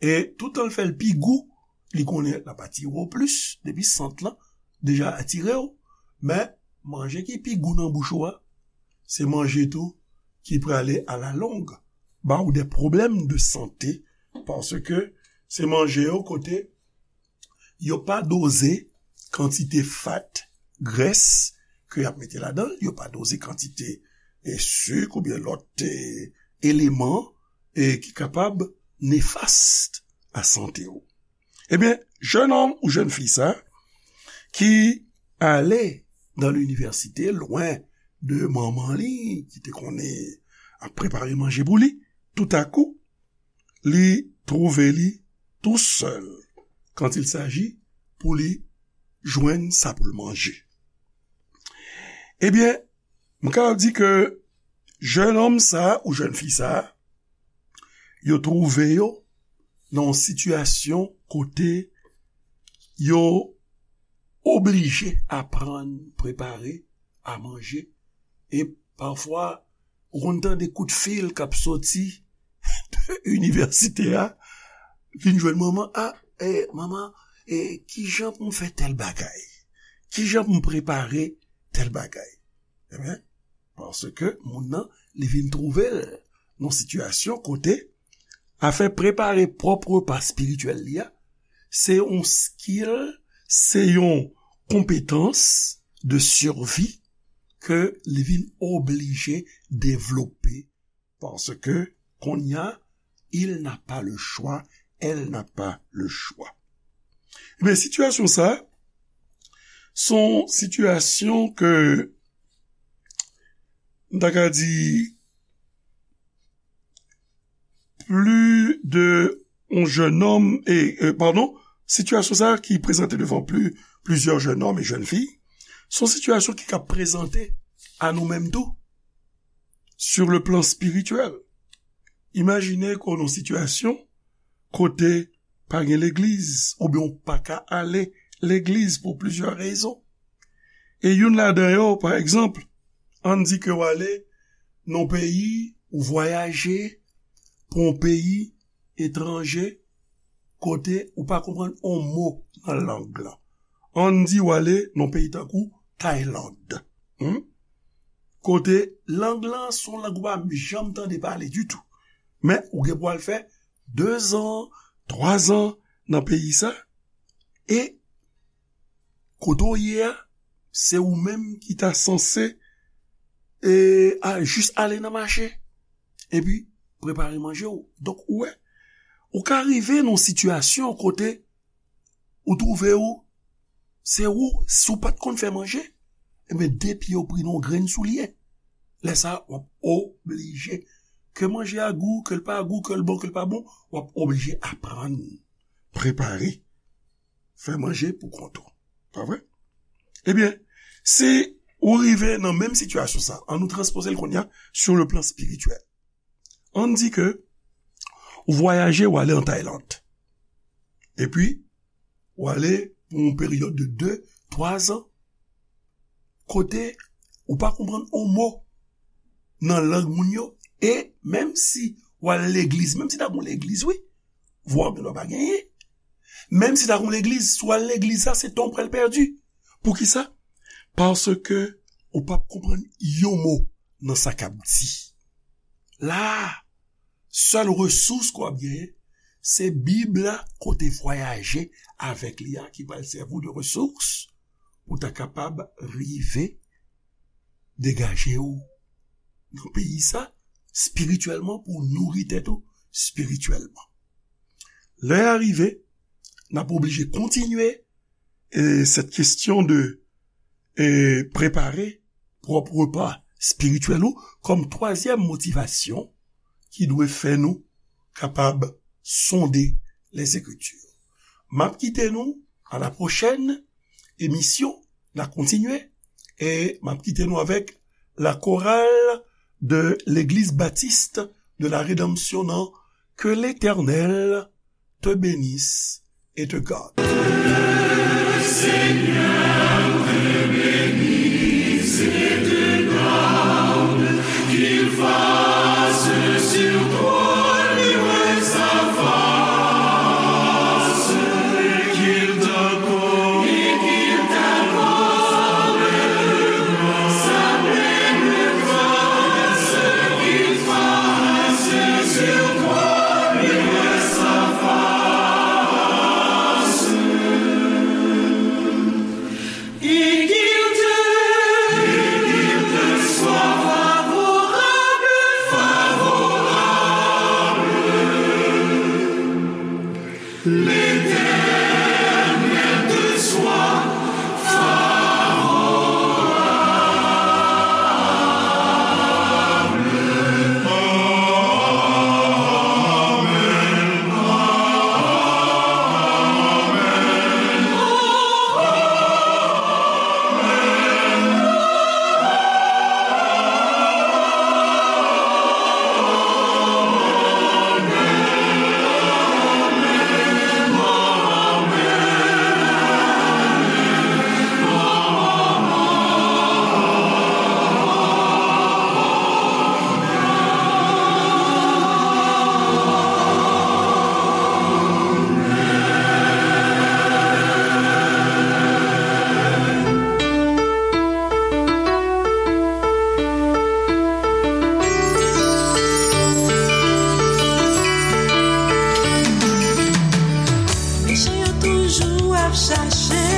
E toutan l fè l pi gou, li konnen l ap atire w plis, depi sant lan deja atire w. Men, manje ki pi gou nan bouch ou a, se manje tou ki prale alalong ba ou de pwoblèm de sante, paske se manje yo kote yo pa doze kantite fat, grès, ke y ap mete ladan l, yo pa doze kantite, e, sik oubyen lòt, e, eleman, e, ki kapab nefast a sante w. Ebyen, jennonm ou jennfi sa, ki ale nan linivèsite, lwen de manman li, ki te konnen ap prepare manje pou li, toutakou, li twouve li tou sèl quand il s'agit pou li jwenn sa pou l manje. Ebyen, m ka di ke jennonm sa ou jennfi sa, yo twouve yo nan yon sitiyasyon kote yo oblije aprann prepare a manje. E pafwa, ou konn tande kout fil k ap soti de inivèsite a, vin jwenn manman, a, e, manman, e, kijan pou m fè tèl bagay? Kijan pou m prepare tèl bagay? Ebyen, paske moun nan, li vin twouve l nan sitiyasyon kote afè prepare pwòp repa espirityèl li a, se yon skill, se yon konpetans de survie ke li vin oblije devlope, paske kounye a, il n'a pas le choix, elle n'a pas le choix. Ebyen, sitiyasyon sa, se yon sitiyasyon ke m ta ka di, plis de yon jennonm, e, e, padon, sitiyasyon sa a ki prezante devan pli, plizyè jennonm e jèn fi, se yon sitiyasyon ki ka prezante a nou menm tou, sur le plan spirituel. Imajine ke w nan yon sitiyasyon kote pa gen legliz, oubyen w pa ka ale legliz pou plizyè rezon. E youn ladan yo, pa egzanp, ann di ke w ale nan yon peyi, ou vwayaje pou yon peyi etranje, kote ou pa konprann yon mo nan lang lan. Ann di w ale nan yon peyi tankou Tayland. Hmm? Kote lang lan se yon lang ou pa janm tande pale ditou. Men ou gen pou al fè dezan, twazan nan peyi sa, e kote w ye a, se ou menm ki ta sanse, e, a, jis ale nan mache, epi prepare manje w. Donk, ou wè, ou ka rive nan yon sitiyasyon kote ou twouve w, se ou, si w pa t konn fè manje, ebyen, de pye w pri nan yon grenn soulye. Lè sa a, w ap oblije, ke manje a gou, ke l pa gou, ke l bon, ke l pa bon, w ap oblije aprann prepare, fè manje pou kont ou. Pa vre? Ebyen, si ou rive nan menm sitiyasyon sa, ann nou transpoze l kounye a sur le plan spirituel. Ann di ke ou vwayaje, ou ale an Tayland. Epi, ou ale pou yon peryòd de de, twazan, kote ou pa konprann yon mo nan lang moun yo, e menm si ou al legliz, menm si ta gen yon legliz, wi, vwa w gendwa pa genyen. Menm si ta gen yon legliz, si w al legliz sa, se tan w pral pèdi. Poukisa? Paske ou p ap konprann yon mo nan sa k ap di. La, sèl resous ke w ap genyen, se Bib la, kote vwayaje avèk li a, ki pral sèvi w de resous pou w ta kapab rive degaje w nan peyi sa, espirityèlman, pou w nouri tèt ou espirityèlman. Lè a rive, n ap oblije kontinye, e, cette question de, e, prepare pwòp repa espirityèl ou kòm twazyèm motivasyon ki dwe fè nou kapab sonde Lèzekritir. M ap kite nou à la prochaine émission, n a kontinye, e m ap kite nou avèk la chorale de l'Église Baptiste de la Rédemption nan Que l'Éternel te bénisse et te garde. Mechan yo toujou ap chache